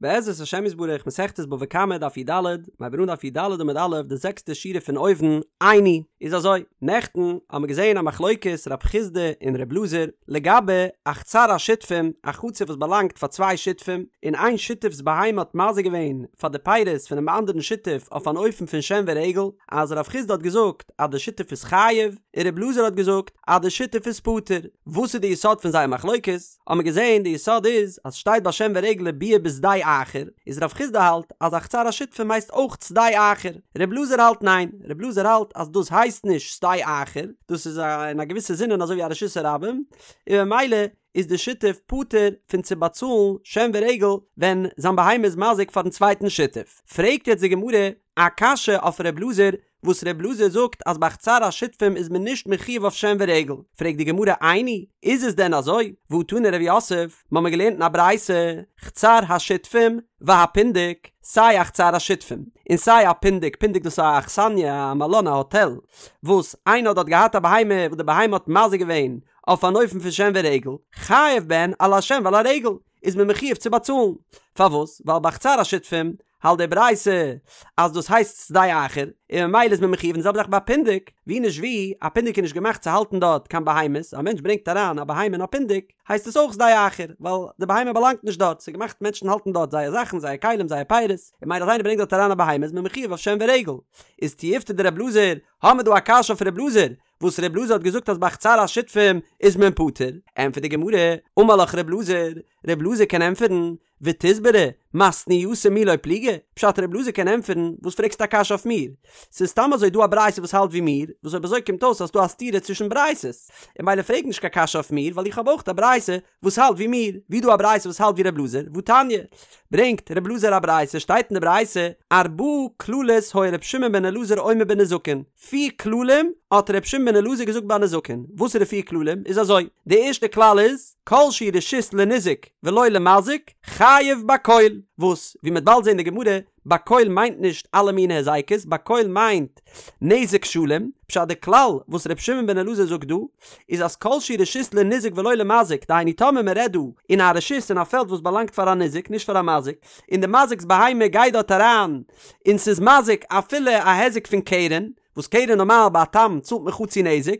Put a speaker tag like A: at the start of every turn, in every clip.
A: בעזרת השם יתברך מסכת בבא קמא דף י"ד, מ'הייבט אן דף י"ד עמוד א' די זעקסטע שורה פון אויבן, איני, איז אזוי, נעכטן האמיר געזען א מחלוקת רב חסדא און רב אלעזר לגבי א חצר השותפים, א חצר וואס באלאנגט פאר צוויי שותפים, און איין שותף'ס בהמה האט מזיק געווען פאר די פירות פונעם אנדערן שותף אויף אן אופן פון שן ורגל, אז רב חסדא האט געזאגט אז די שותף איז חייב, און רב אלעזר האט געזאגט אז די שותף איז פטור. וואס איז די יסוד פון זייער מחלוקת? האבן מיר געזען די יסוד איז אז שטייט ביי שן ורגל וביער בשדה אחר, איז רב חסדא האלט אז א חצר השותפים הייסט אויך שדה אחר, רב אלעזר האלט ניין, רב אלעזר האלט אז דאס הייסט נישט שדה אחר, דאס איז אין א געוויסע זינען אזוי ווי א רשות הרבים, און ממילא איז די שותף פטור פון צו באצאלן שן ורגל ווען זיין בהמה איז מזיק פארן צווייטן שותף. פרעגט יעצט די גמרא א קשיא אויף רב אלעזר, וואס ר' אלעזר זאגט אז ביי חצר השותפים איז מען נישט מחויב אויף שן ורגל, פרעגט די גמרא איני, איז עס דען אזוי? והא תני רב יוסף, מ'האמיר געלערנט אין א ברייתא, חצר השותפים והפונדק, סיי א חצר השותפים, און סיי א פונדק, פונדק דאס איז א אכסניא, א מלון, א האטעל, וואס איינער האט דארט געהאט א בהמה וואס די בהמה האט מזיק געווען אויף אן אופן פון שן ורגל, חייב בהן על השן ועל הרגל, איז מען מחויב צו באצאלן. פארוואס? ווייל ביי חצר השותפים האלט די ברייתא אז דאס הייסט שדה אחר, און ממילא איז מען מחויב, און די זעלבע זאך ביי פונדק, ווי נישט ווי, א פונדק איז נישט געמאכט צו האלטן דארט קיין בהמות, א מענטש ברענגט אריין א בהמה אין א פונדק, הייסט עס אויך שדה אחר, ווייל די בהמה באלאנגט נישט דארט, ס'איז געמאכט מענטשן האלטן דארט זייער זאכן, זייער כלים, זייער פירות, און ממילא אז איינער ברענגט דארט אריין א בהמה איז מען מחויב אויף שן ורגל. איז תיובתא דר' אלעזר, האמיר דא א קשיא אויף ר' אלעזר, וואס ר' אלעזר האט געזאגט אז ביי חצר השותפים איז מען פטור, ענטפערט די גמרא, אמר לך ר' אלעזר, ר' אלעזר קען ענטפערן, ותסברא, מתניתא מי לא פליגי, פשט ר' אלעזר קען ענטפערן, וואס פרעגסטו א קשיא אויף מיר? ס'איז סתם אזוי דא א ברייתא וואס האלט ווי מיר, וואס אויב אזוי קומט אויס אז ס'דא א סתירה צווישן ברייתות, און ממילא פרעג נישט קיין קשיא אויף מיר ווייל איך האב אויך א ברייתא וואס האלט ווי מיר, ווי דא א ברייתא וואס האלט ווי ר' אלעזר, והתניא, ברענגט ר' אלעזר א ברייתא, שטייט אין די ברייתא, ארבעה כללות היה ר' שמעון בן אלעזר אומר בנזקין, פיר כללים האט ר' שמעון בן אלעזר געזאגט ביי נזקין, וואס איז די פיר כללים? איז אזוי, די ערשטע כלל איז, כל שהוא רשות לניזק ולא למזיק, חייב בכל, וואס, ווי מ'וועט באלד זען אין די גמרא, בכל מיינט נישט אלע מיני הזיקות, בכל מיינט נזק שלם, פשט די כלל וואס ר' שמעון בן אלעזר זאגט דא, איז אז כל שהוא רשות לניזק ולא למזיק, דהיינו טאמער מ'רעדט דא אין א רשות אין א פעלד וואס באלאנגט פאר א ניזק נישט פאר א מזיק, און די מזיק'ס בהמה גייט דארט אריין און ס'איז מזיק אפילו א היזק פון קרן, וואס קרן נארמאל ביי א תם צאלט מען חצי נזק,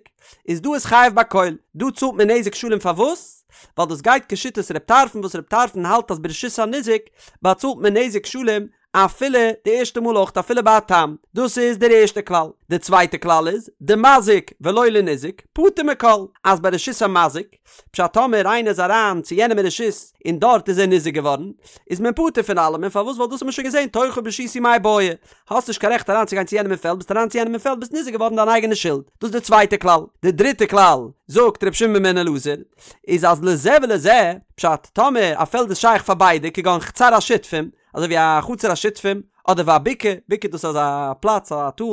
A: איז דא איז חייב בכל, דא צאלט מען נזק שלם פארוואס? ווייל דאס גייט כשיטת ר' טרפון וואס ר' טרפון האלט אז ברשות הניזק באצאלט מען נזק שלם אפילו די ערשטע מאל אויך אפילו ביי א תם, דאס איז דער ערשטע כלל, די צווייטע כלל איז דמזיק ולא לניזק פטור מכל, אז ביי רשות המזיק, פשט טאמער איינער איז אריין צו יענעם אין רשות און דארט איז ער ניזוק געווארן, איז מען פטור פון אלעמען, פארוואס ווייל דאס האט מען שוין געזען תורך ברשותי מאי בעי, האסט נישט קיין רעכט אריין צו גיין צו יענעם אין פעלד, ביסט אריין צו יענעם אין פעלד ביסט ניזוק געווארן דיין אייגענע שולד, דאס איז די צווייטע כלל, די דריטע כלל, זאגט ר' שמעון בן אלעזר, איז אז לזה ולזה, פשט טאמער א פעלד איז שייך פאר ביידע כגון חצר השותפים, אזוי ווי א חצר השותפים, אדער והבקעה, בקעה דאס איז א פלאץ א טאל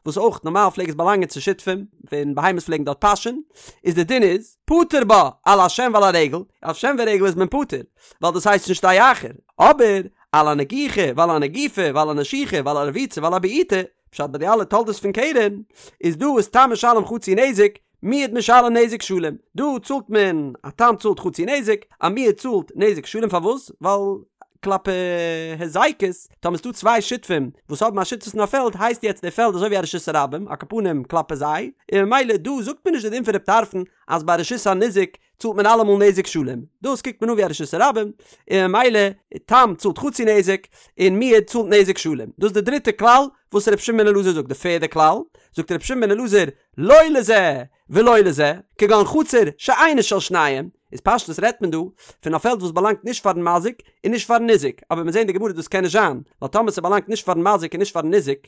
A: וואס אויך נארמאל פלעג עס באלאנגען צו שותפים, ווען בהמות פלעגן דארט פאשען, איז די דין איז, פטור בה על השן ועל הרגל, אויף שן ורגל איז מען פטור, ווייל דאס הייסט נישט שדה אחר, אבער על הנגיחה ועל הנגיפה ועל הנשיכה ועל הרביצה ועל הבעיטה, פשט ביי די אלע תולדות פון קרן, איז דא איז תם משלם חצי נזק, מועד משלם נזק שלם, דא צאלט מען, א תם צאלט חצי נזק, א מועד צאלט נזק שלם, פארוואס? ווייל כלפי הזיקות, טאמער ס'דא צוויי שותפים וואס האבן א שותפות אין א פעלד, הייסט יעצט די פעלד אזוי ווי א רשות הרבים, על כל פנים כלפי זיי, און ממילא דא זאגט מען נישט די דין פון רב טרפון אז ביי רשות הניזק צאלט מען אלעמאל נזק שלם, דאס קוקט מען אן ווי א רשות הרבים, און ממילא תם צאלט חצי נזק, און מועד צאלט נזק שלם. דאס איז די דריטע כלל וואס ר' שמעון בן אלעזר זאגט. די פערדע כלל, זאגט ר' שמעון בן אלעזר, לא לזה ולא לזה, כגון חצר שאינה של שניהם, איז פשטות רעדט מען דא פון א פעלד וואס באלאנגט נישט פארן מזיק און נישט פארן ניזק, אבער מיר זעהן די גמרא דאס קען נישט זיין, ווייל טאמער ס'באלאנגט נישט פארן מזיק און נישט פארן ניזק,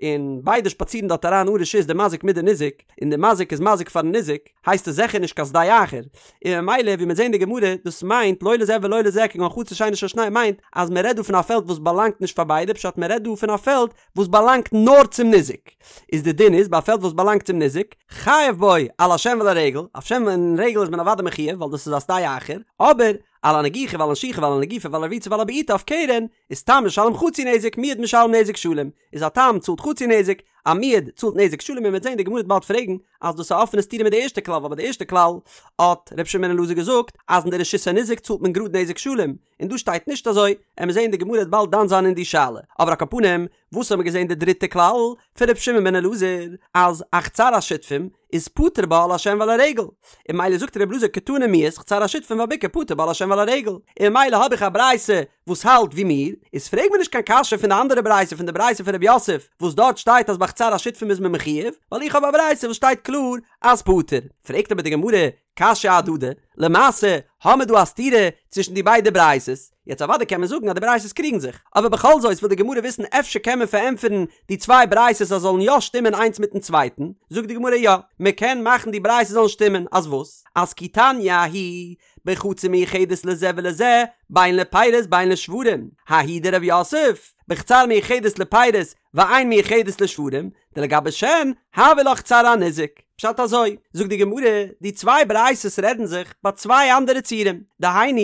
A: און ביידע שפאצירן דארט אריין אן רשות די מזיק מיט די ניזק, און די מזיק איז מזיק פארן ניזק, הייסט עס זיכער נישט קיין שדה אחר, און ממילא ווי מיר זעהן די גמרא דאס מיינט לא לזה ולא לזה כגון חצר שאינה של שניהם מיינט אז מען רעדט דא פון א פעלד וואס באלאנגט נישט פאר ביידע פשט מען רעדט דא פון א פעלד וואס באלאנגט נאר צום ניזק, איז די דין איז ביי א פעלד וואס באלאנגט צום ניזק, חייב בו על השן ועל הרגל, אויף שן און רגל איז מען אוודאי מחויב ווייל דאס איז א שדה אחר, אבער. על הנגיחה ועל הנשיכה ועל הנגיפה ועל הרביצה ועל הבעיטה אויף קרן, איז תם משלם חצי נזק, מועד משלם נזק שלם, איז א תם צאלט חצי נזק, א מועד צאלט נזק שלם און מ'וועט זען די גמרא וועט באלד פרעגן אז דאס איז א אפענע סתירה מיט די ערשטע כלל ווייל ביי די ערשטע כלל האט ר' שמעון בן אלעזר געזאגט אז אין די רשות הניזק צאלט מען גראד נזק שלם און דא שטייט נישט אזוי, עמיר זען די גמרא וועט באלד דן זיין אין די שאלה, אבער על כל פנים וואס האבן מיר געזען די דריטע כלל פון ר' שמעון בן אלעזר אז א חצר השותפים איז פטור בה על השן ועל הרגל, און ממילא זאגט ר' אלעזר קתני מיהת חצר השותפים והבקעה פטור בה על השן ועל הרגל, און ממילא האב איך א ברייתא וואס האלט ווי מיר, איז פרעג מיר נישט קיין קשיא פון די אנדערע ברייתא פון די ברייתא פון ר' יוסף וואס דארט שטייט אז ביי חצר השותפים איז מען מחויב, ווייל איך האב א ברייתא וואס שטייט קלאר אז פטור. פרעגט אבער די גמרא, קשיא אהדדי, למעשה האמיר דא א סתירה צווישן די ביידע ברייתות, יעצט אוודאי קען מען זאגן אז די ברייתות קריגן זיך, אבער בכל זאת וויל די גמרא וויסן אפשר קען מען פארענטפערן די צוויי ברייתות אז זאלן יא שטימען איינס מיטן צווייטן, זאגט די גמרא יא, מען קען מאכן די ברייתות זאלן שטימען, אז וואס? אז כי תניא ההיא בחצר מיוחדת לזה ולזה, בין לפירות בין לשוורים, ההיא דרב יוסף, בחצר מיוחדת לפירות ואין מיוחדת לשוורים, דלגבי שן, הויא לה חצר הניזק. פשט אזוי, זאגט די גמרא, די צוויי ברייתות רעדן זיך ביי צוויי אנדערע ציורים, דהיינו,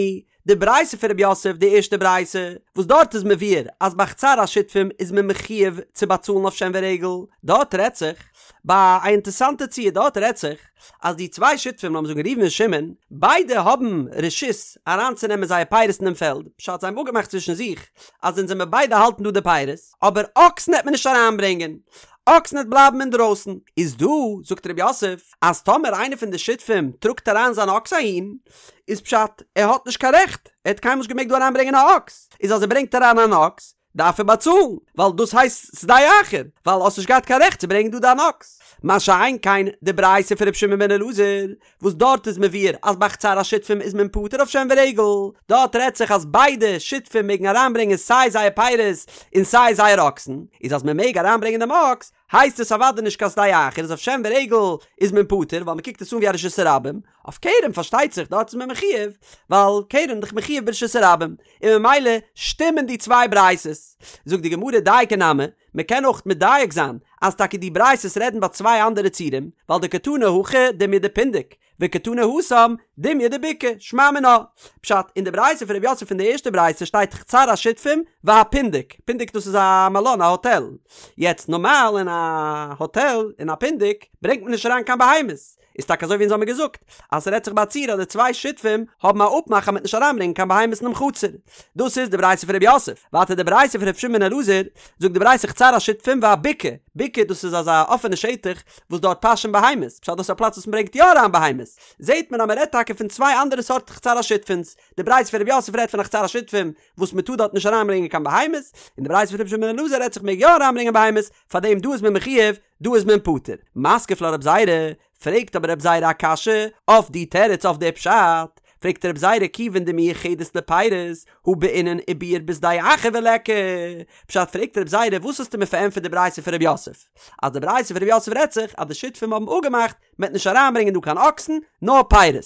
A: די ברייתא פון רב יוסף, די ערשטע ברייתא, וואס דארט איז מבואר אז ביי חצר השותפים איז מען מחויב צו באצאלן אויף שן ורגל, דארט רעדט זיך ביי א אינטערסאנטע ציור, דארט רעדט זיך אז די צוויי שותפים, לאמיר זאגן ראובן און שמעון, ביידע האבן רשות אריינצונעמען זייער פירות אינעם פעלד, פשט זיי האבן אפגעמאכט צווישן זיך אז אונז וועמיר ביידע האלטן דא די פירות, אבער אקסן העט מען נישט אריינברענגען, אקסן העט בלייבן אינדרויסן. איז דא, זאגט רב יוסף, אז טאמער איינער פון די שותפים טראגט אריין זיין אקס אהין, איז פשט ער האט נישט קיין רעכט, ער האט קיינמאל נישט געמעגט דא אריינברענגען א אקס, איז אז ער ברענגט אריין אן אקס, דארף ער באצאלן, ווייל דאס הייסט שדה אחר, ווייל האסט נישט געהאט קיין רעכט צו ברענגען דא דיין אקס. מה שאין כן די ברייתא פון ר' שמעון בן אלעזר, וואס דארט איז מבואר אז ביי חצר השותפים איז מען פטור אויף שן ורגל, דארט רעדט זיך אז ביידע שותפים מעגן אריינברענגען סיי זייער פירות און סיי זייער אקסן, איז אז מען מעג אריינברענגען דעם אקס, הייסט עס אוודאי נישט קיין שדה אחר, איז אויף שן ורגל איז מען פטור, ווייל מען קוקט עס אן ווי א רשות הרבים, אויף קרן פארשטייט זיך דארט איז מען מחויב, ווייל קרן איז דאך מחויב ברשות הרבים, און ממילא שטימען די צוויי ברייתות. זאגט די גמרא דייקא נמי, מען קען אויך מדייק זיין אז טאקע די ברייתות רעדן ביי צוויי אנדערע ציורים, ווייל דקתני הכא דומיא דפונדק, וקתני התם דומיא דבקעה, שמע מינה. פשט, אין די ברייתא פון רב יוסף פון די ערשטע ברייתא שטייט חצר השותפים והפונדק, פונדק דאס איז א מלון א האטעל, יעצט נארמאל אין א האטעל אין א פונדק ברענגט מען נישט אריין קיין בהמות, איז טאקע אזוי ווי אונז האמיר געזאגט אז ס'רעדט זיך ביי א ציור אז די צוויי שותפים האבן א אפמאך אז מ'וועט נישט אריינברענגען קיין בהמות אינעם חצר. דאס איז די ברייתא פון ר' יוסף. ווייטער די ברייתא פון ר' שמעון בן אלעזר, זאגט די ברייתא חצר השותפים והבקעה, בקעה דאס איז אזא אפענע שטח וואס דארט פאשען בהמות, פשט דאס איז א פלאץ וואס מ'ברענגט יא אריין בהמות, זעהט מען אז מ'רעדט טאקע פון צוויי אנדערע סארט חצר השותפים'ס, די ברייתא פון ר' יוסף רעדט פון א חצר השותפים וואס מ'טאר דארט נישט אריינברענגען קיין בהמות, און די ברייתא פון ר' שמעון בן אלעזר רעדט זיך מ'מעג יא אריינברענגען בהמות, פארדעם דא איז מען מחויב דא איז מען פטור. מתקיף לה רב זירא, פרעגט אבער רב זירא א קשיא אויף די תירוץ אויף די פשט, פרעגט רב זירא כיוון דמיוחדת לפירות הא בעינן ובער בשדה אחר וליכא, פשט פרעגט רב זירא וואס האסטו מיר פארענטפערט די ברייתא פון רב יוסף, אז די ברייתא פון רב יוסף רעדט זיך אז די שותפים האבן אפגעמאכט מען וועט נישט אריינברענגען דא קיין אקסן נאר פירות,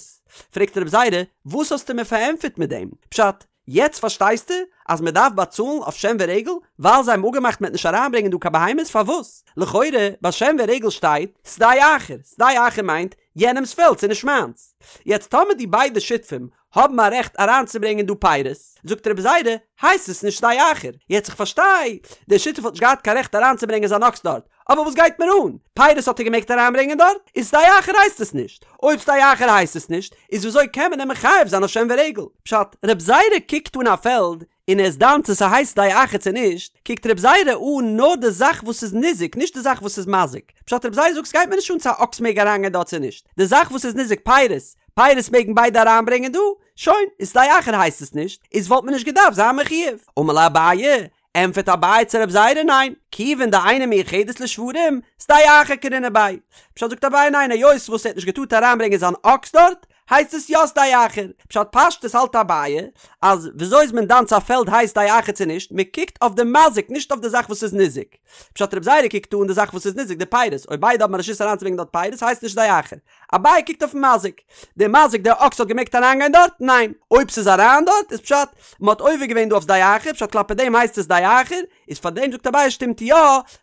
A: פרעגט רב זירא וואס האסטו מיר פארענטפערט מיט דעם פשט, יעצט פארשטייסטו אז מען דארף באצאלן אויף שן ורגל ווייל זיי האבן אפגעמאכט מען וועט נישט אריינברענגען דא קיין בהמות פארוואס? לכאורה ביי שן ורגל שטייט שדה אחר, שדה אחר מיינט יענעמס פעלד ס'איז נישט מיינס. יעצט טאמער די ביידע שותפים האבן א רעכט אריינצוברענגען דא פירות, זאגט רבי זירא, הייסט עס נישט שדה אחר. יעצט איך פארשטיי, דער שותף האט נישט געהאט קיין רעכט אריינצוברענגען זיין אקס דארט, אבער וואס גייט מיר אן? פירות האט ער געמעגט אריינברענגען דארט? איז שדה אחר הייסט עס נישט. אויב שדה אחר הייסט עס נישט, איז וויאזוי קען מען אים מחייב זיין אויף שן ורגל? פשט, רב זירא קוקט אן א פעלד און ער איז דן צו ס'הייסט שדה אחר צו נישט, קוקט רב זירא אן נאר די זאך וואס איז ניזוק, נישט די זאך וואס איז מזיק. פשט, רב זירא זאגט ס'גייט מיר נישט אן צו א אקס מעג אריינגיין דארט צו נישט, די זאך וואס איז ניזוק פירות, פירות מעגן ביידע אריינברענגען דא, שוין, איז שדה אחר הייסט עס נישט, איז וואלט מען נישט געדארפט זיין מחויב. אמר ליה אביי, ענטפערט אביי צו רב זירא ניין, כיוון דאינה מיוחדת לשוורים, שדה אחר קרינן ביה. פשט זאגט אביי ניין היות וואס ער האט נישט געטארט אריינברענגען זיין אקס דארט, הייסט עס יא שדה אחר. פשט פשטות האלט אביי אז וויאזוי איז מען דן צו א פעלד הייסט שדה אחר צו נישט, מען קוקט אויף די מזיק נישט אויף די זאך וואס איז ניזוק. פשט רב זירא קוקט אן די זאך וואס איז ניזוק די פירות, אויב ביידע האבן א רשות אריינצוברענגען דארט פירות הייסט נישט שדה אחר. אביי קוקט אויפן מזיק. דער מזיק דער אקס האט געמעגט אריינגיין דארט? ניין. אויב ס'איז אריין דארט איז פשט מ'האט עובר געווען דא אויף שדה אחר, פשט כלפי דעם הייסט עס שדה אחר, איז פאר דעם זאגט אביי שטימט יא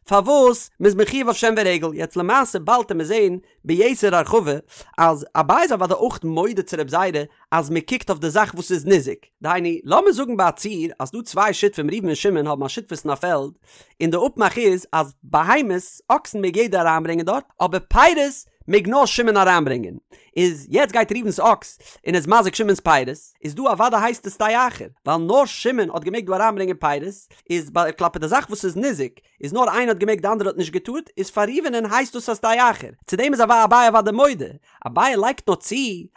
A: פארוואס מ'איז מחויב אויף שן ורגל. יעצט למעשה באלד עמיר זעהן ביתר הרחבה אז אביי איז אוודאי אויך מודה צו רב זירא אז מען קוקט אויף די זאך וואס איז ניזוק, דהיינו לאמיר זאגן ביי א ציור אז דא צוויי שותפים ראובן און שמעון האבן א שותפות אין א פעלד, און די אפמאך איז אז בהמות, אקסן מעג יעדער אריינברענגען דארט, אבער פירות מעג נאר שמעון אריינברענגען, איז יעצט גייט ראובן'ס אקס און איז מזיק שמעון'ס פירות, איז דא אוודאי הייסט עס שדה אחר, ווייל נאר שמעון האט געמעגט דא אריינברענגען פירות, איז ביי כלפי די זאך וואס איז ניזוק, איז נאר איינער האט געמעגט די אנדערע האט נישט געטארט, איז פאר ראובן'ען הייסט דאס א שדה אחר, צו דעם איז אביי אוודאי מודה, אביי לייגט נאר צו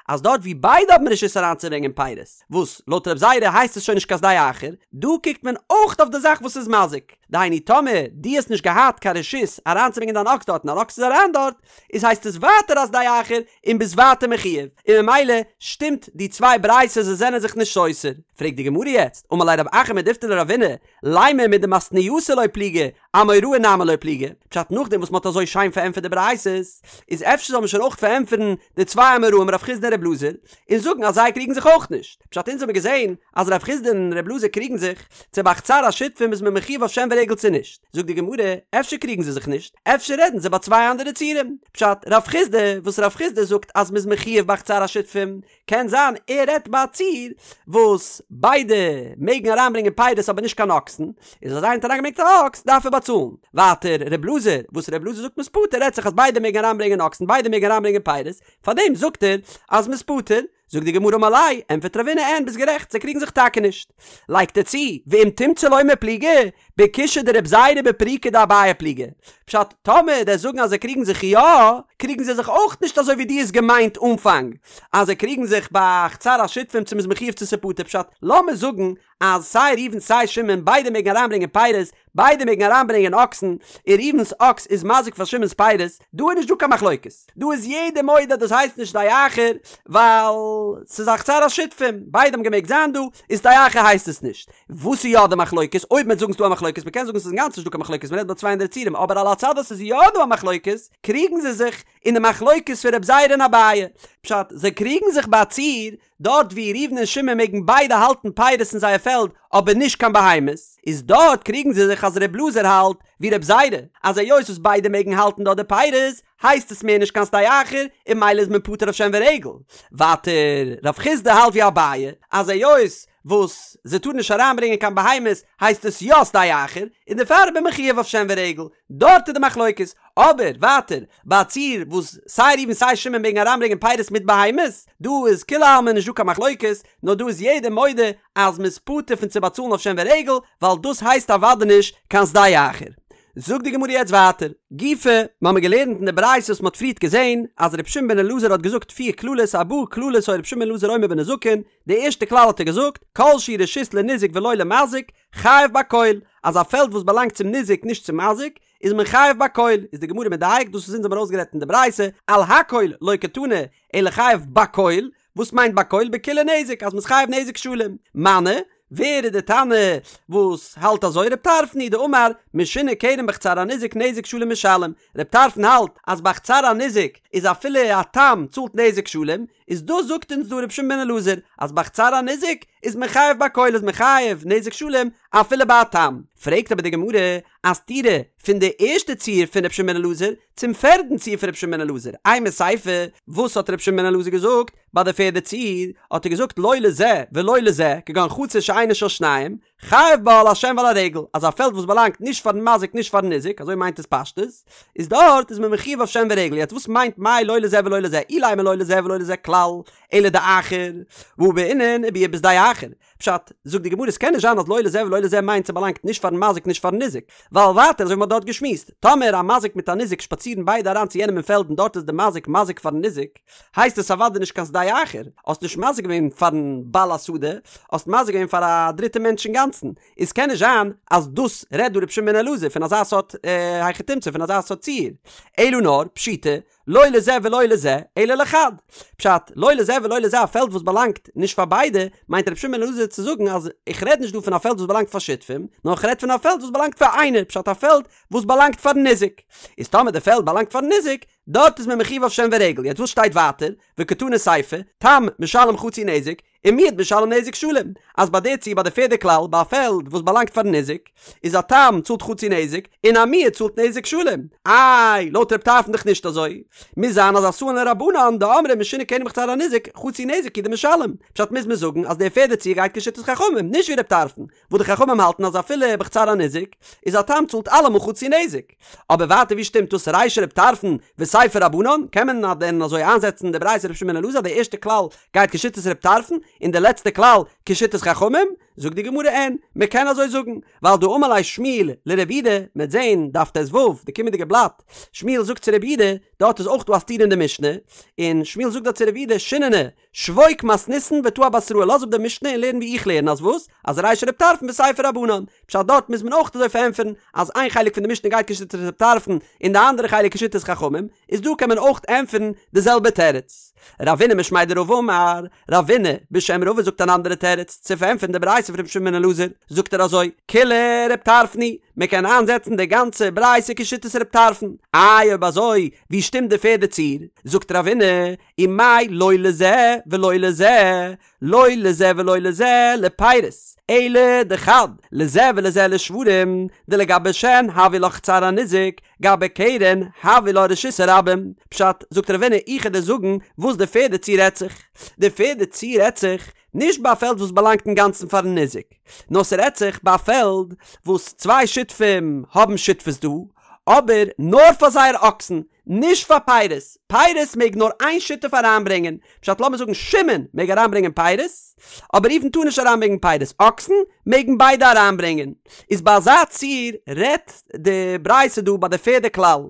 A: אז דארט ווי ביידע האבן רשות אריינצוברענגען פירות, וואס לויט רב זירא הייסט עס שוין נישט קיין שדה אחר, דא קוקט מען אויך אויף די זאך וואס איז מזיק, דהיינו טאמער דו האסט נישט געהאט קיין רשות אריינצוברענגען דיין אקס דארט און אן אקס איז אריין דארט, איז הייסט עס ווייטער א שדה אחר און ביסט ווייטער מחויב, און ממילא שטימט די צוויי ברייתות זיי זענען זיך נישט סותר. פרעגט די גמרא יעצט, אמר ליה רב אחא מדיפתי לרבינא, לימא מדמתניתא לא פליגי, אמוראי נמי לא פליגי, פשט נאכדעם וואס מ'האט אזוי שיין פארענטפערט די ברייתות, איז אפשר זאל מען שוין אויך פארענטפערן די צוויי אמוראים רב חיסדא און רב אלעזר, און זאגן אז זיי קריגן זיך אויך נישט. פשט אונז האבן געזען אז רב חיסדא און רב אלעזר קריגן זיך, צו ביי חצר השותפים איז מען מחויב אויף שן ורגל צו נישט. זאגט די גמרא, אפשר קריגן זיי זיך נישט, אפשר רעדן זיי ביי צוויי אנדערע ציורים. פשט, רב חיסדא, וואס רב חיסדא זאגט אז מ'איז מחויב ביי חצר השותפים, קען זיין ער רעדט ביי א ציור וואס ביידע מעגן אריינברענגען פירות אבער נישט קיין אקסן, איז אז איינער האט אריינגעברענגט א אקס דארף ער באצאלן. ווייטער ר' אלעזר, וואס ר' אלעזר זאגט מ'איז פטור רעדט זיך אז ביידע מעגן אריינברענגען אקסן ביידע מעגן אריינברענגען פירות, פארדעם זאגט ער אז מ'איז פטור. זאגט די גמרא אמר ליה, ענטפערט רבינא אין ביסט גערעכט זיי קריגן זיך טאקע נישט. לייגט ער צו, ואם תמצא לומר פליגי, בקושיא דרב זירא בפירוקא דאביי פליגי. פשט, טאמער דו'סט זאגן אז זיי קריגן זיך יא, קריגן זיי זיך אויך נישט אזוי ווי דו האסט געמיינט אנפאנג, אז זיי קריגן זיך ביי חצר השותפים צו מ'איז מחויב צו ס'פטור פשט, לאמיר זאגן אז סיי ראובן סיי שמעון ביידע מעגן אריינברענגען פירות, ביידע מעגן אריינברענגען אקסן, און ראובן'ס אקס איז מזיק פאר שמעון'ס פירות, דא איז נישט דא קיין מחלוקת, דא איז יעדער מודה אז דאס הייסט נישט שדה אחר, ווייל ס'איז א חצר השותפים, ביידע האבן געמעגט זיין דא, איז שדה אחר הייסט עס נישט. וואס איז יא די מחלוקת? אויב מ'וועט זאגן ס'דא א מחלוקת, מ'קען זאגן ס'איז אינגאנצן נישט דא קיין מחלוקת, מ'רעדט ביי צוויי אנדערע ציורים, אבער על הצד אז ס'איז יא דא א מחלוקת, קריגן זיי זיך אין די מחלוקת פון רב זירא און אביי. פשט, זיי קריגן זיך ביי א ציור, דארט ווי ראובן און שמעון מעגן ביידע האלטן פירות אין זייער פעלד אבער נישט קיין בהמות, איז דארט קריגן זיי זיך אז ר' אלעזר האלט ווי רב זירא, אז היות וואס ביידע מעגן האלטן דארט די פירות, הייסט עס מער נישט קיין שדה אחר, און ממילא איז מען פטור אויף שן ורגל. ווייטער, רב חיסדא האלט ווי אביי, אז היות וואס זיי טארן נישט אריינברענגען קיין בהמות הייסט עס יא שדה אחר, און דערפאר איז מען מחויב אויף שן ורגל, דארט איז די מחלוקת. אבער ווייטער, ביי א ציור וואס סיי ראובן סיי שמעון מעגן אריינברענגען פירות מיט בהמות, דא איז כולי עלמא נישט דא קיין מחלוקת, נאר דא איז יעדער מודה אז מ'איז פטור פון צו באצאלן אויף שן ורגל, ווייל דאס הייסט אוודאי נישט קיין שדה אחר. זאגט די גמרא יעצט ווייטער, גופא, מ'האמיר געלערנט אין די ברייתא וואס מ'האט פריערט געזען, אז ר' שמעון בן אלעזר האט געזאגט פיר קללות ארבעה קללות היה ר' שמעון בן אלעזר אומר בנזקין, די ערשטע כלל האט ער געזאגט, כל שהוא רשות לניזק ולא למזיק, חייב בכל, אז א פעלד וואס באלאנגט צום ניזק נישט צום מזיק, איז מען חייב בכל, איז די גמרא מדייק, דאס וואס אונז האבן ארויסגערעדט אין די ברייתא, על הכל לא קתני, אלא חייב בכל, וואס מיינט בכל? בכולי נזק, אז מ'איז חייב נזק שלם. מני, ווער איז די תנא וואס האלט אזוי? רב טרפון היא דאמר, משונה כרם בחצר הניזק נזק שלם משלם. רב טרפון האלט אז בחצר הניזק איז אפילו א תם צאלט נזק שלם, איז דאס זאגט אונז דא רבי שמעון בן אלעזר אז בחצר הניזק איז מען חייב בכל איז מען חייב נזק שלם אפילו ביי א תם. פרעגט אבער די גמרא א סתירה פון די ערשטע ציור פון רבי שמעון בן אלעזר צום פערדן ציור פון רבי שמעון בן אלעזר, אימא סיפא, וואס האט רבי שמעון בן אלעזר געזאגט ביי די פערדע ציור? האט ער געזאגט לא לזה ולא לזה כגון חצר שאינה של שניהם, חייב בה על השן ועל הרגל, אז א פעלד וואס באלאנגט נישט פארן מזיק נישט פארן ניזק, אזוי מיינט עס פשטות, איז דארט איז מען מחויב אויף שן ורגל, יעצט וואס מיינט מאי לא לזה ולא לזה, אילימא לא לזה ולא לזה כלל, אלא דאחר, והא בעינן וביער בשדה אחר, פשט, זאגט די גמרא עס קען נישט זיין אז לא לזה ולא לזה מיינט ס'באלאנגט נישט פארן מזיק נישט פארן ניזק, ווייל ווייטער אזוי ווי מ'האט דארט געשמועסט, טאמער א מזיק מיט א ניזק שפאצירן ביידע אריין צו יענעם אין פעלד און דארט איז די מזיק מזיק פארן ניזק, הייסט עס אוודאי נישט קיין שדה אחר, האסט נישט מזיק געווען פארן בעל השדה, האסט מזיק געווען פאר א דריטע מענטש אינגאנצן, איז קען נישט זיין אז דאס רעדט דא רבי שמעון בן אלעזר פון אזא סארט היכי תמצא פון אזא סארט ציור, אלא נאר פשיטא לא לזה ולא לזה אלא לחד, פשט, לא לזה ולא לזה א פעלד וואס באלאנגט נישט פאר ביידע, מיינט רבי שמעון בן אלעזר צו זאגן אז איך רעד נישט דא פון א פעלד וואס באלאנגט פאר שותפים, נאר איך רעד פון א פעלד וואס באלאנגט פאר איינער, פשט א פעלד וואס באלאנגט פארן ניזק, איז טאמער די פעלד באלאנגט פארן ניזק, דארט איז מען מחויב אויף שן ורגל, יעצט וואס שטייט ווייטער, וקתני סיפא, תם משלם חצי נזק, און מועד משלם נזק שלם, אז ביי די ציור ביי די פערדע כלל ביי א פעלד וואס באלאנגט פארן ניזק, איז א תם צאלט חצי נזק, און א מועד צאלט נזק שלם. איי, לויט רב טרפון דאך נישט אזוי. מוז זיין אז אתאן לרבנן דאמרי משונה קרן בחצר הניזק, חצי נזק הוא דמשלם. פשט מוז מען זאגן אז די פערדע ציור גייט כשיטת חכמים, נישט ווי רב טרפון, וואס די חכמים האלטן אז אפילו בחצר הניזק, איז א תם צאלט אלעמאל חצי נזק. אבער ווייטער ווי שטימט דאס רישא רב טרפון וסיפא רבנן? קען מען דען אזוי איינזעצן די ברייתא רבי שמעון בן אלעזר די ערשטע כלל גייט כשיטת רב טרפון און די לעצטע כלל כשיטת חכמים? זאגט די גמרא אין, מען קען אזוי זאגן, ווייל דאמר ליה שמואל לרב יהודה, מען וועט זען דף ט"ו, די קומענדיגע בלאט, שמואל זאגט צו רב יהודה, דארט איז אויך דא א סתירה אין די משנה, און שמואל זאגט דארט צו רב יהודה, שיננא, שבוק מתניתין ותא אבתראי, לאז אפ די משנה און לערן ווי איך לערן, אז וואס? אז רישא רב טרפון וסיפא רבנן, פשט דארט מוז מען אויך אזוי פארענטפערן, אז איין חלק פון די משנה גייט כשיטת רב טרפון און די אנדערע חלק כשיטת חכמים, איז דא קען מען אויך ענטפערן די זעלבע תירוץ. רבינא משמיה דרבא אמר, רבינא בשם רבא זאגט אן אנדערע תירוץ צו פארענטפערן די ברייתא פון רבי שמעון בן אלעזר, זאגט ער אזוי, כולה רב טרפון היא, מען קען איינזעצן די גאנצע ברייתא כשיטת רב טרפון, איי אויב אזוי ווי שטימט די פערדע ציור? זאגט רבינא, ומאי לא לזה ולא לזה, לא לזה ולא לזה לפירות, אלא דחד, לזה ולזה לשוורים, דלגבי שן הויא לה חצר הניזק, גבי קרן הויא לה רשות הרבים. פשט, זאגט רבינא איך וועל דיר זאגן וואס די פערדע ציור רעדט זיך. די פערדע ציור רעדט זיך נישט ביי א פעלד וואס באלאנגט אינגאנצן פארן ניזק, נאר ס'רעדט זיך ביי א פעלד וואס צוויי שותפים האבן שותפות דא, אבער נאר פאר זייער אקסן, נישט פאר פירות, פירות מעג נאר איין שותף אריינברענגען, פשט לאמיר זאגן שמעון מעג אריינברענגען פירות, אבער ראובן טאר נישט אריינברענגען פירות, אקסן מעגן ביידע אריינברענגען, איז ביי אזא ציור רעדט די ברייתא דא ביי די פערדע כלל,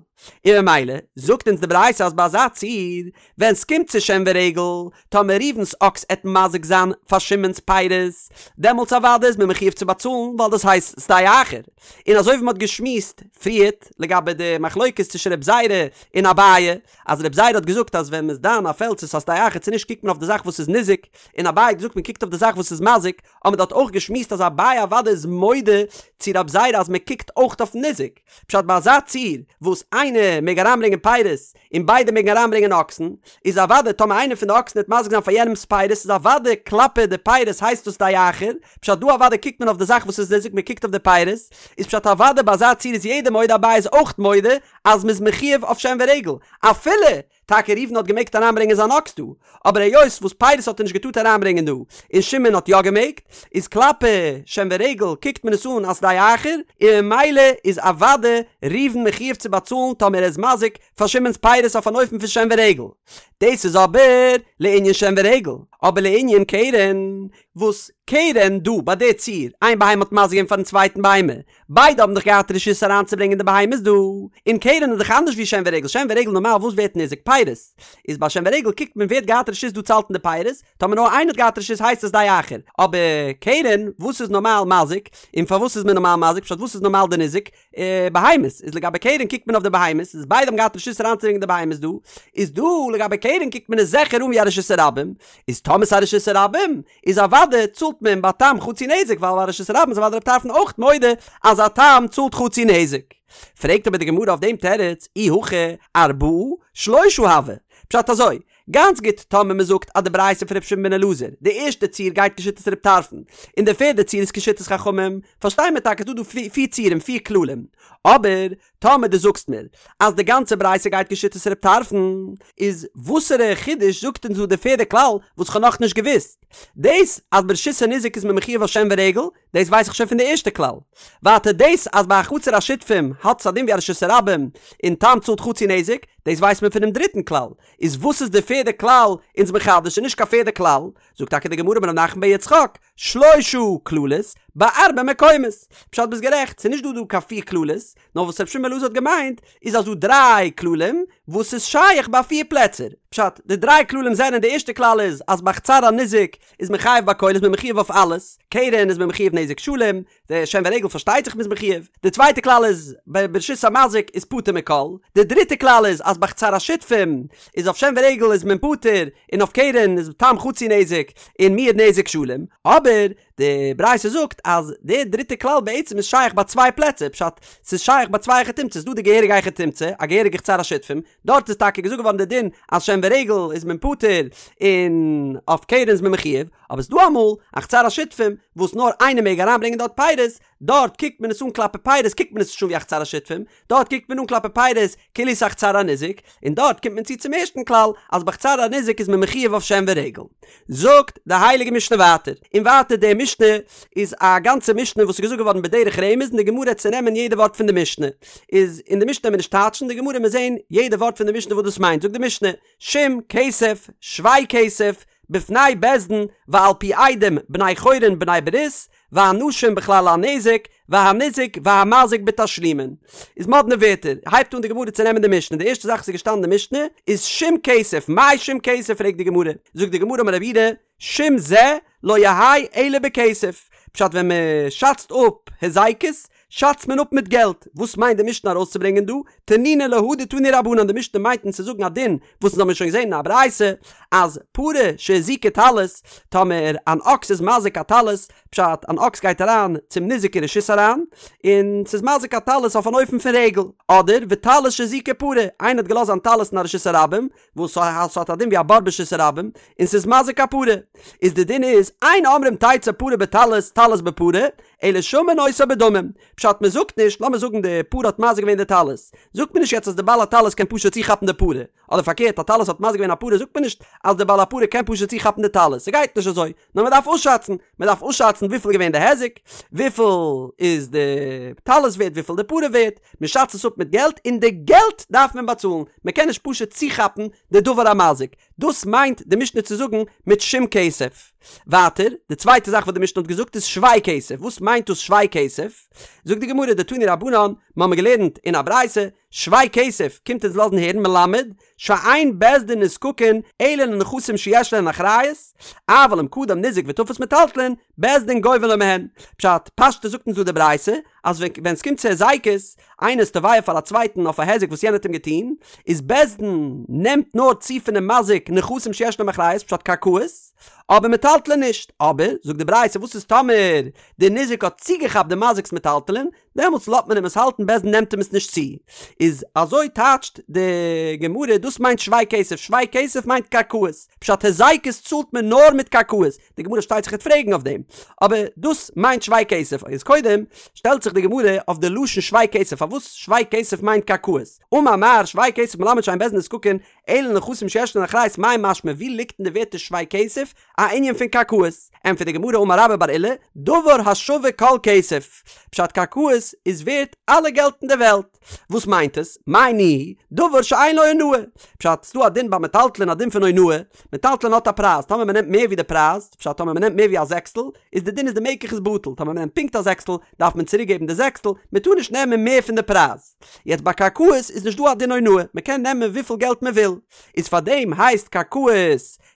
A: און ממילא זאגט אונז די ברייתא אז ביי אזא ציור ווען סקומט צו שן ורגל, טאמער ראובן'ס אקס עט מזיק זיין פאר שמעון'ס פירות, דעמאלטס אוודאי איז מען מחויב צו באצאלן ווייל דאס הייסט שדה אחר. און אזוי ווי מ'האט געשמועסט פריערט לגבי די מחלוקת צווישן רב זירא און אביי, אז רב זירא האט געזאגט אז ווען מ'איז דן א פעלד צו ס'איז א שדה אחר צו נישט קוקט מען אויף די זאך וואס איז ניזוק, און אביי האט געזאגט מ'קוקט אויף די זאך וואס איז מזיק, האט מען דארט אויך געשמועסט אז אביי אוודאי איז מודה צו רב זירא אז מ'קוקט אויך אויפן ניזוק. פשט ביי אזא ציור וואס איינער מעג אריינברענגען פירות און ביידע מעגן אריינברענגען אקסן, איז אוודאי טאמער איינער פון די אקסן וועט מזיק זיין פאר יענעמס פירות איז אוודאי כלפי די פירות הייסט דאס שדה אחר, פשט דא אוודאי קוקט מען אויף די זאך וואס איז ניזוק מען קוקט אויף די פירות, איז פשט אוודאי ביי אזא ציור איז יעדער מודה אביי איז אויך מודה אז מ'איז מחויב אויף שן ורגל אפילו טאקע ראובן האט געמעגט אריינברענגען זיין אקס דא, אבער היות וואס פירות האט ער נישט געטארט אריינברענגען דא, און שמעון האט יא געמעגט, איז כלפי שן ורגל קוקט מען עס אן אלס שדה אחר, און ממילא איז אוודאי ראובן מחויב צו באצאלן טאמער ער איז מזיק פאר שמעון'ס פירות אויף אן אופן פון שן ורגל. דאס איז אבער לענין שן ורגל, אבער לענין קרן, וואס קרן דא ביי די ציור, איין בהמה האט מזיק געווען פארן צווייטן בהמה, ביידע האבן דאך געהאט רשות אריינצוברענגען די בהמות דא, און קרן איז דאך אנדערש ווי שן ורגל, שן ורגל נארמאל וואס ווערט ניזוק? פירות. איז ביי שן ורגל קוקט מען ווער האט געהאט רשות דא צו האלטן די פירות, טאמער נאר איינער האט געהאט רשות הייסט עס שדה אחר, אבער קרן וואס איז נארמאל מזיק, און פארוואס איז מען נארמאל מזיק, פשט וואס איז נארמאל די ניזוק? בהמות, איז לגבי קרן קוקט מען אויף די בהמות, איז ביידע האבן געהאט רשות אריינצוברענגען די בהמות דא, איז דא לגבי קרן קוקט מען עס זיכער אן ווי א רשות הרבים, איז טאמער ס'איז א רשות הרבים, איז אוודאי צאלט מען ביי תם חצי נזק ווייל ביי רשות הרבים איז אוודאי רב טרפון אויך מודה אז א תם צאלט חצי נזק. פרעגט אבער די גמרא אויף דעם תירוץ אי הכי ארבעה שלשה הוה, פשט אזוי, גאנץ גוט טאמער מען זאגט אז די ברייתא פון ר' שמעון בן אלעזר, די ערשטע ציור גייט כשיטת רב טרפון, און די פערדע ציור איז כשיטת חכמים, פארשטיי מיר טאקע ס'דא דא פיר ציורים פיר כללים, אבער טאמער דו זאגסט מיר אז די גאנצע ברייתא גייט כשיטת רב טרפון, איז וואסערע חידוש זאגט אונז דא די פערדע כלל וואס כ'האב נאכנישט געוואוסט? דאס אז ברשות הניזק איז מען מחויב אויף שן ורגל, דאס ווייס איך שוין פון די ערשטע כלל. ווייטער דאס אז ביי א חצר השותפים האט עס א דין ווי א רשות הרבים און תם צאלט חצי נזק, דאס ווייסט מען פונעם דריטן כלל. איז וואס איז די פערדע כלל אונז מחדש? ס'איז נישט קיין פערדע כלל. זאגט טאקע די גמרא אמר רב נחמן בר יצחק, שלשה כללות בארבעה מקומות. פשט ביסט גערעכט, ס'איז נישט דא דא קיין פיר כללות, נאר וואס רבי שמעון בן אלעזר האט געמיינט איז אז דא דריי כללים וואס איז שייך ביי פיר פלעצער. פשט, די דריי כללים זענען, די ערשטע כלל איז אז ביי חצר הניזק איז מען חייב בכל איז מען מחויב אויף אלעס, קרן איז מען מחויב נזק שלם, די שן ורגל פארשטייט זיך מ'איז מחויב, די צווייטע כלל איז ביי ברשות המזיק איז פטור מכל, די דריטע כלל איז אז ביי חצר השותפים איז אויף שן ורגל איז מען פטור און אויף קרן איז תם חצי נזק און מועד נזק שלם, אבער די ברייתא זאגט אז די דריטע כלל בעצם איז שייך ביי צוויי פלעצער, פשט ס'איז שייך ביי צוויי היכי תמצא'ס, ס'דא די געהעריגע היכי תמצא, א געהעריגע חצר השותפים, דארט איז טאקע געזאגט געווארן די דין אז שן. ורגל איז מען פטור און אויף קרן איז מען מחויב, אבער ס'דא אמאל א חצר השותפים וואס נאר איינער מעג אריינברענגען דארט פירות, דארט קוקט מען עס אן כלפי פירות קוקט מען עס נישט אן ווי א חצר השותפים, דארט קוקט מען אן כלפי פירות כאילו ס'איז א חצר הניזק, און דארט קומט מען צו צום ערשטן כלל אז בחצר הניזק איז מען מחויב אויף שן ורגל. זאגט די הייליגע משנה ווייטער, און ווייטער די משנה איז א גאנצע משנה וואס איז געזאגט געווארן בדרך רמז און די גמרא וועט צונעמען יעדע ווארט פון די משנה, איז אין די משנה וועט מען נישט טייטשן די גמרא מיר זעהן יעדע ווארט פון די משנה וואס דאס מיינט, זאגט די משנה, שום כסף, שווה כסף, בפני בית דין ועל פי עדים בני חורין בני ברית, והנשים בכלל הנזק, והניזק והמזיק בתשלומין. איז מאדנע ווערטער, הייבט אן די גמרא צו נעמען די משנה, די ערשטע זאך וואס איז געשטאנען אין די משנה איז שום כסף, מאי שום כסף פרעגט די גמרא, זאגט די גמרא אמר רב יהודה, שום זה לא יהא אלא בכסף, פשט ווען מען שאצט אפ היזקות שאצט מען אפ מיט געלט, וואס מיינט די משנה ארויסצוברענגען דא? תנינא להא דתנו רבנן, די משנה מיינט אונז צו זאגן א דין וואס אונז האבן שוין געזען אין א ברייתא אז פרה שהזיקה טלית, טאמער אן אקס איז מזיק א טלית, פשט, אן אקס גייט אריין צום ניזק אין רשות אריין, און ס'איז מזיק א טלית אויף אן אופן פון רגל, אדער וטלית שהזיקה פרה, איינער האט געלאזט זיין טלית אין א רשות הרבים, וואס ס'האט א דין ווי א בור ברשות הרבים, און ס'איז מזיק א פרה, איז די דין איז, אין אומרים תצא פרה בטלית טלית בפרה, אלא שמין אותה בדמים, פשט מען זאגט נישט, לאמיר זאגן די פרה האט מזיק געווען די טלית, זאגט מען נישט יעצט אז די בעל הטלית קען פשוט צוכאפן די פרה, אדער פארקערט א טלית האט מזיק געווען א פרה זאגט מען נישט אז די בעל הפרה קען פשוט צוכאפן די טלית, ס'גייט נישט אזוי, נאר מען דארף אפשאצן, מען דארף אפשאצן וויפיל איז געווען די היזק, וויפיל איז די טלית ווערט, וויפיל די פרה ווערט, מען שאצט עס אפ מיט געלט, און די געלט דארף מען באצאלן, מען קען נישט פשוט צוכאפן די דבר המזיק, דאס מיינט די משנה צו זאגן מיט שום כסף. ווייטער, די צווייטע זאך וואס די משנה האט געזאגט איז שווה כסף, וואס מיינט דאס שווה כסף? זאגט די גמרא דתנו רבנן, מיר האבן געלערנט אין א ברייתא, שווה כסף קומט אונז לאזן הערן מלמד שאין בית דין נזקקין אלא לנכסים שיש להן אחריות, אבל אם קדם ניזק ותפס מטלטלין, בית דין גובין לו מהן. פשט, פשטות זאגט אונז דא די ברייתא, אז ווען ס'קומט צו היזקות, איינער איז תובע פאר א צווייטן אויף א היזק וואס יענער האט אים געטון, איז בית דין נעמט נאר צו פונעם מזיק נכסים שיש להם אחריות, פשט קרקעות, אבער מטלטלין נישט. אבער, זאגט די ברייתא, וואס איז טאמער די ניזק האט צוגעכאפט די מזיק'ס מטלטלין, דעמאלטס לאזט מען אים עס האלטן בית דין נעמט אים עס נישט צו. איז אזוי טייטשט די גמרא דאס מיינט שווה כסף, שווה כסף מיינט קרקעות, פשט היזקות צאלט מען נאר מיט קרקעות, די גמרא שטייט זיך וועט פרעגן אויף דעם, אבער דאס מיינט שווה כסף, איז קודם שטעלט זיך די גמרא אויף די לשון שווה כסף פארוואס שווה כסף מיינט קרקעות, אמר מר שווה כסף מלמד שאין בית דין נזקקין אלא לנכסים שיש להן אחריות מאי משמע ווי ליגט אין די ווערטער שווה כסף א ענין פון קרקעות? ענטפערט די גמרא אמר רבה בר עולא, דבר השווה כל כסף, פשט קרקעות איז ווערט אלע געלט אין די וועלט, וואס מיינט עס? מאי ניהו, דבר שאין לו אונאה, פשט ס'דא א דין ביי מטלטלין א דין פון אונאה, מטלטלין האט א פרייז, טאמער מ'נעמט מער ווי די פרייז, פשט טאמער מ'נעמט מער ווי א זעקסטל, איז די דין איז די מקח איז בטל, טאמער מ'נעמט פונקט א זעקסטל, דארף מען צוריק געבן די זעקסטל, מ'טאר נישט נעמען מער פון די פרייז. יעצט ביי קרקעות איז נישט דא א דין אונאה, מ'קען נעמען וויפיל געלט מ'וויל, איז פארדעם הייסט קרקעות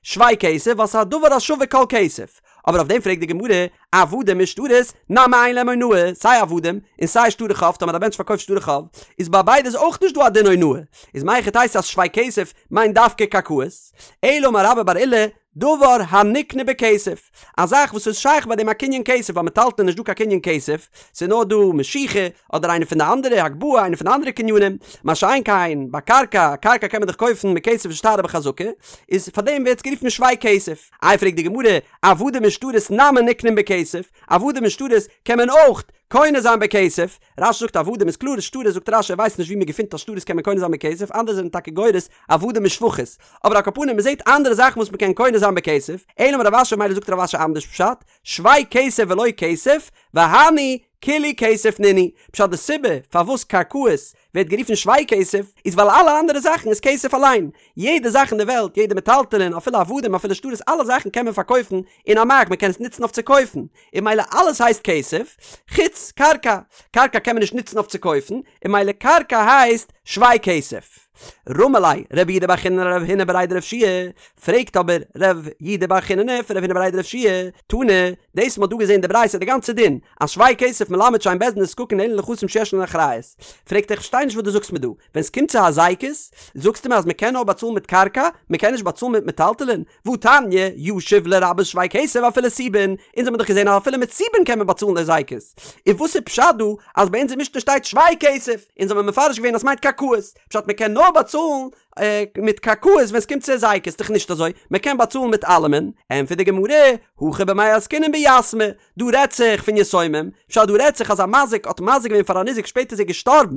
A: שווה כסף ווייל ס'איז א דבר השווה כל כסף. אבער אויף דעם פרעגט די גמרא, עבדים ושטרות, נמי אין להם אונאה, סיי עבדים, און סיי שטרי חוב, טאמער א מענטש פארקויפט שטרי חוב, איז ביי ביידע איז אויך נישט דא א דין אונאה, איז מהיכי תיתי אז שווה כסף מיינט דווקא קרקעות? אלא אמר רבה בר עולא, דבר הנקנה בכסף, א זאך וואס איז שייך ביי דעם א קנין כסף, ביי מטלטלין איז נישט דא קיין קנין כסף, ס'איז נאר דא משיכה, אדער איינע פון די אנדערע, הגבהה, איינע פון די אנדערע קנינים, מה שאין כן ביי קרקע, קרקע קען מען דאך קויפן מיט כסף ושטר ובחזקה, איז פאר דעם ווערט עס גערופן שווה כסף. איי פרעגט די גמרא, עבדים ושטרות נמי נקנין בכסף, עבדים און שטרות קען מען אויך קונה זיין בכסף, רש"י זאגט עבדים איז קלאר, שטרות זאגט רש"י ער ווייסט נישט ווי מען געפינט אז שטרות קען מען קונה זיין בכסף, אנדערע זענען טאקע גורס עבדים און שפחות, אבער על כל פנים מען זעט אנדערע זאכן וואס מען קען קונה זיין בכסף, אלא אמר רב אשי מילא זאגט רב אשי אנדערש פשט, שווה כסף ולא כסף, והני כולהו כסף נינהו, פשט די סיבה פארוואס קרקעות ווערט גערופן שווה כסף איז ווייל אלע אנדערע זאכן איז כסף אליין, יעדע זאך אין די וועלט, יעדע מטלטלין, אפילו עבדים אפילו שטרות אלע זאכן קען מען פארקויפן אין א מארק מען קען עס נוצן אויף צו קויפן, און מילא אלעס הייסט כסף, חוץ קרקע, קרקע קען מען נישט נוצן אויף צו קויפן, און מילא קרקע הייסט שווה כסף. רמי ליה רב יהודה בר חיננא לרב הונא בריה דרב יהושע פרעגט אבער רב יהודה בר חיננא פון רב הונא בריה דרב יהושע תנא, דאס מ'האט דא געזען די ברייתא די גאנצע דין אז שווה כסף מלמד שאין בית דין נזקקין אלא לנכסים שיש להן אחריות, פרעגט ער איך פארשטיי נישט וואס דו זאגסט מיר דא, ווען ס'קומט צו הזיקות זאגסטו מיר אז מ'קען נאר באצאלן מיט קרקע, מ'קען נישט באצאלן מיט מטלטלין, והתניא, ישיב לרבות שווה כסף אפילו סובין, אונז האבן דאך געזען אז אפילו מיט סובין קען מען באצאלן די הזיקות, און וואס איז פשט דא אז ביי אונזער משנה שטייט שווה כסף, אונז האבן מפרש געווען אז ס'מיינט קרקעות, פשט מ'קען נאר באצאלן. מיט קרקעות ווען ס'קומט צו היזקות, ס'דאך נישט אזוי, מ'קען באצאלן מיט אלעמען, ענטפערט די גמרא, הכא במאי עסקינן ביתמי, דא רעדט זיך פון יתומים, פשט דא רעדט זיך אז א מזיק האט מזיק געווען פאר א ניזק שפעטער איז ער געשטארבן,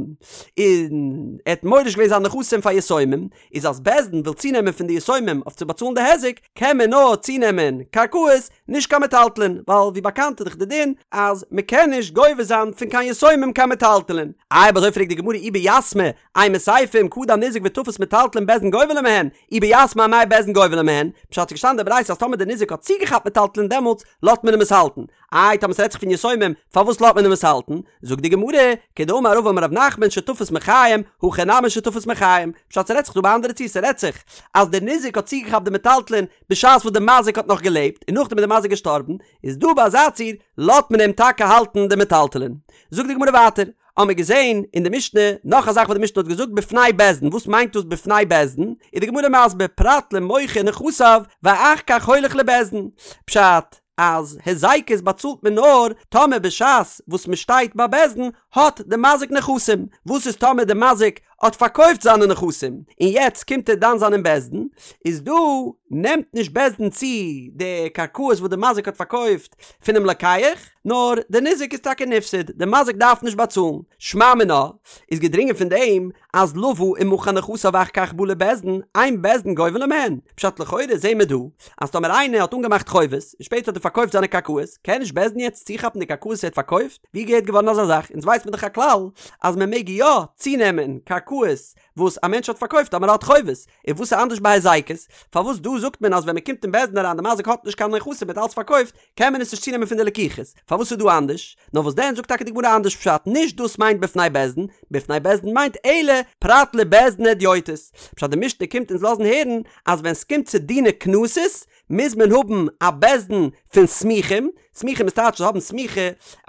A: און ער האט מוריש געווען זיינע נכסים פאר יתומים, איז אז בית דין וויל צונעמען פון די יתומים אויף צו באצאלן די היזק, קען מען נאר צונעמען קרקעות, נישט קיין מטלטלין, ווייל ווי באקאנט איז דאך די דין אז מען קען נישט גובה זיין פון קיין יתומים קיין מטלטלין. איי אויב אזוי פרעגט די גמרא אי ביתמי, אימא סיפא אם קדם ניזק ותפס מטלטלין בית דין גובה ליה מהן, אי ביתמי אמאי בית דין גובה ליה מהן, פשט ס'איז געשטאנען אין די ברייתא אז טאמער די ניזק האט צוגעכאפט מטלטלין דעמאלטס לאזט מען אים עס האלטן, איי טאמער ס'רעדט זיך פון יתומים פארוואס לאזט מען אים עס האלטן? זאגט די גמרא, כדאמר רבא אמר רב נחמן שתפס מחיים, הכא נמי שתפס מחיים, פשט ס'רעדט זיך דא ביי אנדערע ציור ס'רעדט זיך אז דער ניזק האט צוגעכאפט די מטלטלין בשעת וואס די מזיק האט נאך געלעבט און נאכדעם איז די מזיק געשטארבן, איז דא ביי אזא ציור לאזט מען אים טאקע האלטן די מטלטלין. זאגט די גמרא ווייטער, האמיר געזען אין די משנה נאך א זאך וואס די משנה האט געזאגט בפני בית דין, וואס מיינט דאס בפני בית דין? איז די גמרא מסביר פרט למוכר נכסיו ואחר כך הולך לבית דין, פשט אז היזקות באצאלט מען נאר טאמער בשעת וואס מען שטייט ביי בית דין האט די מזיק נכסים, וואס איז טאמער די מזיק האט פארקויפט זיינע נכסים און יעצט קומט ער דן זיין אין בית דין, איז דא נעמט נישט בית דין צו די קרקעות וואס די מזיק האט פארקויפט פונעם לוקח, נאר די ניזק איז טאקע נפסד, די מזיק דארף נישט באצאלן. שמע מינה, איז געדרינגען פון דעם אז לוה ומכר נכסיו ואחר כך בא לבית דין, אין בית דין גובה לו מהן. פשט לכאורה זעהן מיר דא אז טאמער איינער האט אנגעמאכט חובות און שפעטער האט ער פארקויפט זיינע קרקעות, קען נישט בית דין יעצט צוכאפן די קרקעות וואס ער האט פארקויפט? ווי געהערט געווארן אזא זאך? אונז ווייסט מען דאך א כלל אז מען מעג יא צונעמען קרקעות וואס א מענטש האט פארקויפט טאמער ער האט חובות, און וואס איז אנדערש ביי היזקות? פארוואס דא זאגט מען אז ווען מען קומט אין בית דין אריין די מזיק האט נישט קיין נכסים מען האט אלץ פארקויפט, קען מען עס נישט צונעמען פון די לקוחות? פארוואס איז דא אנדערש? נאר וואס דען זאגט טאקע די גמרא אנדערש פשט, נישט דאס מיינט בפני בית דין, בפני בית דין מיינט אלא פרט לבית דין הדיוטות, פשט די משנה קומט אונז לאזן הערן אז ווען סקומט צו דיני קנסות מוז מען האבן א בית דין פון סמוכים, סמוכים איז טייטש זיי האבן סמיכה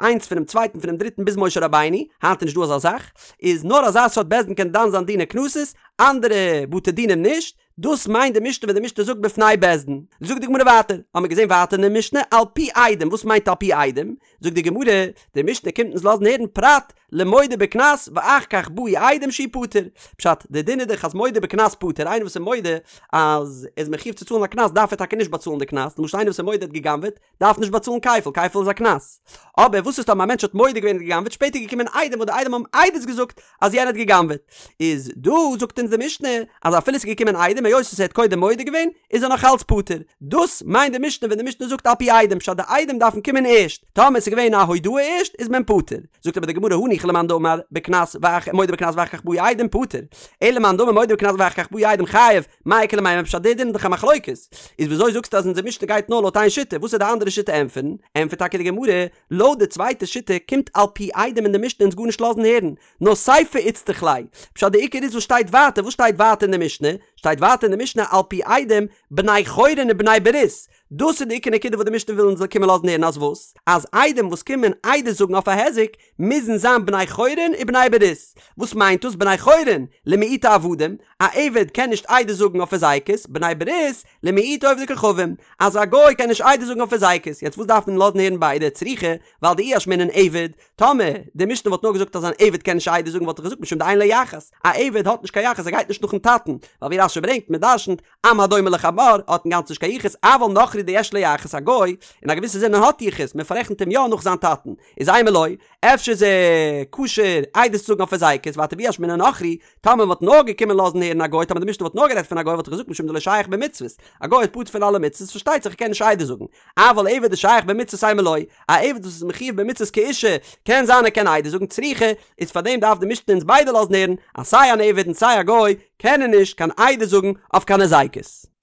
A: איינס פונעם צווייטן פונעם דריטן ביז משה רבינו, היינט איז נישט דא אזא זאך, איז נאר אזא סארט בית דין קען דן זיין דיני קנסות, אנדערע בתי דינים נישט, דאס מיינט די משנה ווען די משנה זאגט בפני בית דין. זאגט די גמרא ווייטער, האמיר געזען ווייטער אין די משנה על פי עדים, וואס מיינט על פי עדים? זאגט די גמרא, די משנה קומט אונז לאזן הערן פרט למודה בקנס ואחר כך באו עדים שהוא פטור, פשט, די דין איז דאך אז מודה בקנס פטור, איינער וואס איז מודה אז ער איז מחיוב צו צאלן א קנס דארף ער טאקע נישט באצאלן די קנס, למשל איינער וואס איז מודה ער האט גע'גנב'עט דארף נישט באצאלן כפל, כפל איז א קנס. אבער וואס איז טאמער א מענטש האט מודה געווען ער האט גע'גנב'עט שפעטער געקומען עדים וואס די עדים האבן עדות געזאגט אז יענער האט גע'גנב'עט, איז דא זאגט אונז די משנה אז אפילו ס'איז געקומען עדים היות וואס ער האט קודם מודה געווען איז ער נאך אלץ פטור, דאס מיינט די משנה ווען די משנה זאגט על פי עדים פשט די עדים דארפן קומען ערשט, טאמער ס'איז געווען א הודאה ערשט איז מען פטור, זאגט אבער די גמרא הניחא למאן דאמר בקנס ואח מודה בקנס ואחר כך באו עדים פטור, אלא למאן דאמר מודה בקנס ואחר כך באו עדים חייב, מאי איכא למימר פשט די דין איז דאך א מחלוקת, איז וויאזוי זאגסטו אז אונזער משנה גייט נאר לויט איין שיטה, וואס איז די אנדערע שיטה ענטפערן? ענטפערט טאקע די גמרא, לויט די צווייטע שיטה קומט על פי עדים אין די משנה אונז גארנישט לאזן הערן, נאר סיפא איצטריך ליה, פשט די עיקר איז וואס שטייט ווייטער, וואס שטייט ווייטער אין די משנה? שטייט ווייטער אין די משנה על פי עדים בני חורין ובני ברית, דאס איז די עיקר נקודה וואס די משנה וויל אונז קומען לאזן הערן אז וואס? אז עדים וואס קומען עדות זאגן אויף א היזק מוזן זיין בני חורין ובני ברית, וואס מיינט דאס בני חורין? למעוטי עבדים, א עבד קען נישט עדות זאגן אויף היזקות, בני ברית, למעוטי עובדי כוכבים, אז א גוי קען נישט עדות זאגן אויף היזקות, יעצט וואס דארף מען לאזן הערן ביידע צריכא, ווייל דאי אשמעינן עבד, טאמער די משנה וואלט נאר געזאגט אז אן עבד קען נישט עדות זאגן וואלט איך געזאגט משום דאין לו יחס, א עבד האט נישט קיין יחס ער גייט נישט נאכן טאטן, ווייל ווי רש"י ברענגט מען דרשנ'ט עם הדומה לחמור האט אינגאנצן נישט קיין יחוס, אבל נכרי דיש לו יחס א גוי אין א געוויסע זין האט יחוס מען פאררעכנט אים יא נאך זיין טאטן, איז אימא לא, אפשר איז ער כשר עדות צו זאגן אויף היזקות, ווייטער ואי אשמעינן נכרי, טאמער מ'וואלט נאר געקומען לאזן הערן א גוי, טאמער די משנה וואלט נאר גערעדט פון א גוי וואלט איך געזאגט משום דלא שייך במצוות, א גוי איז פטור פון אלע מצוות פארשטייט זיך ער קען נישט עדות זאגן, אבל עבד דשייך במצוות אימא לא, א עבד וואס איז מחיוב במצוות כאישה, קען זיין ער קען עדות זאגן צריכא, איז פארדעם דארף די משנה אונז ביידע לאזן הערן אז סיי אן עבד און סיי א גוי קענען נישט קיין עדות זאגן אויף קיין היזקות.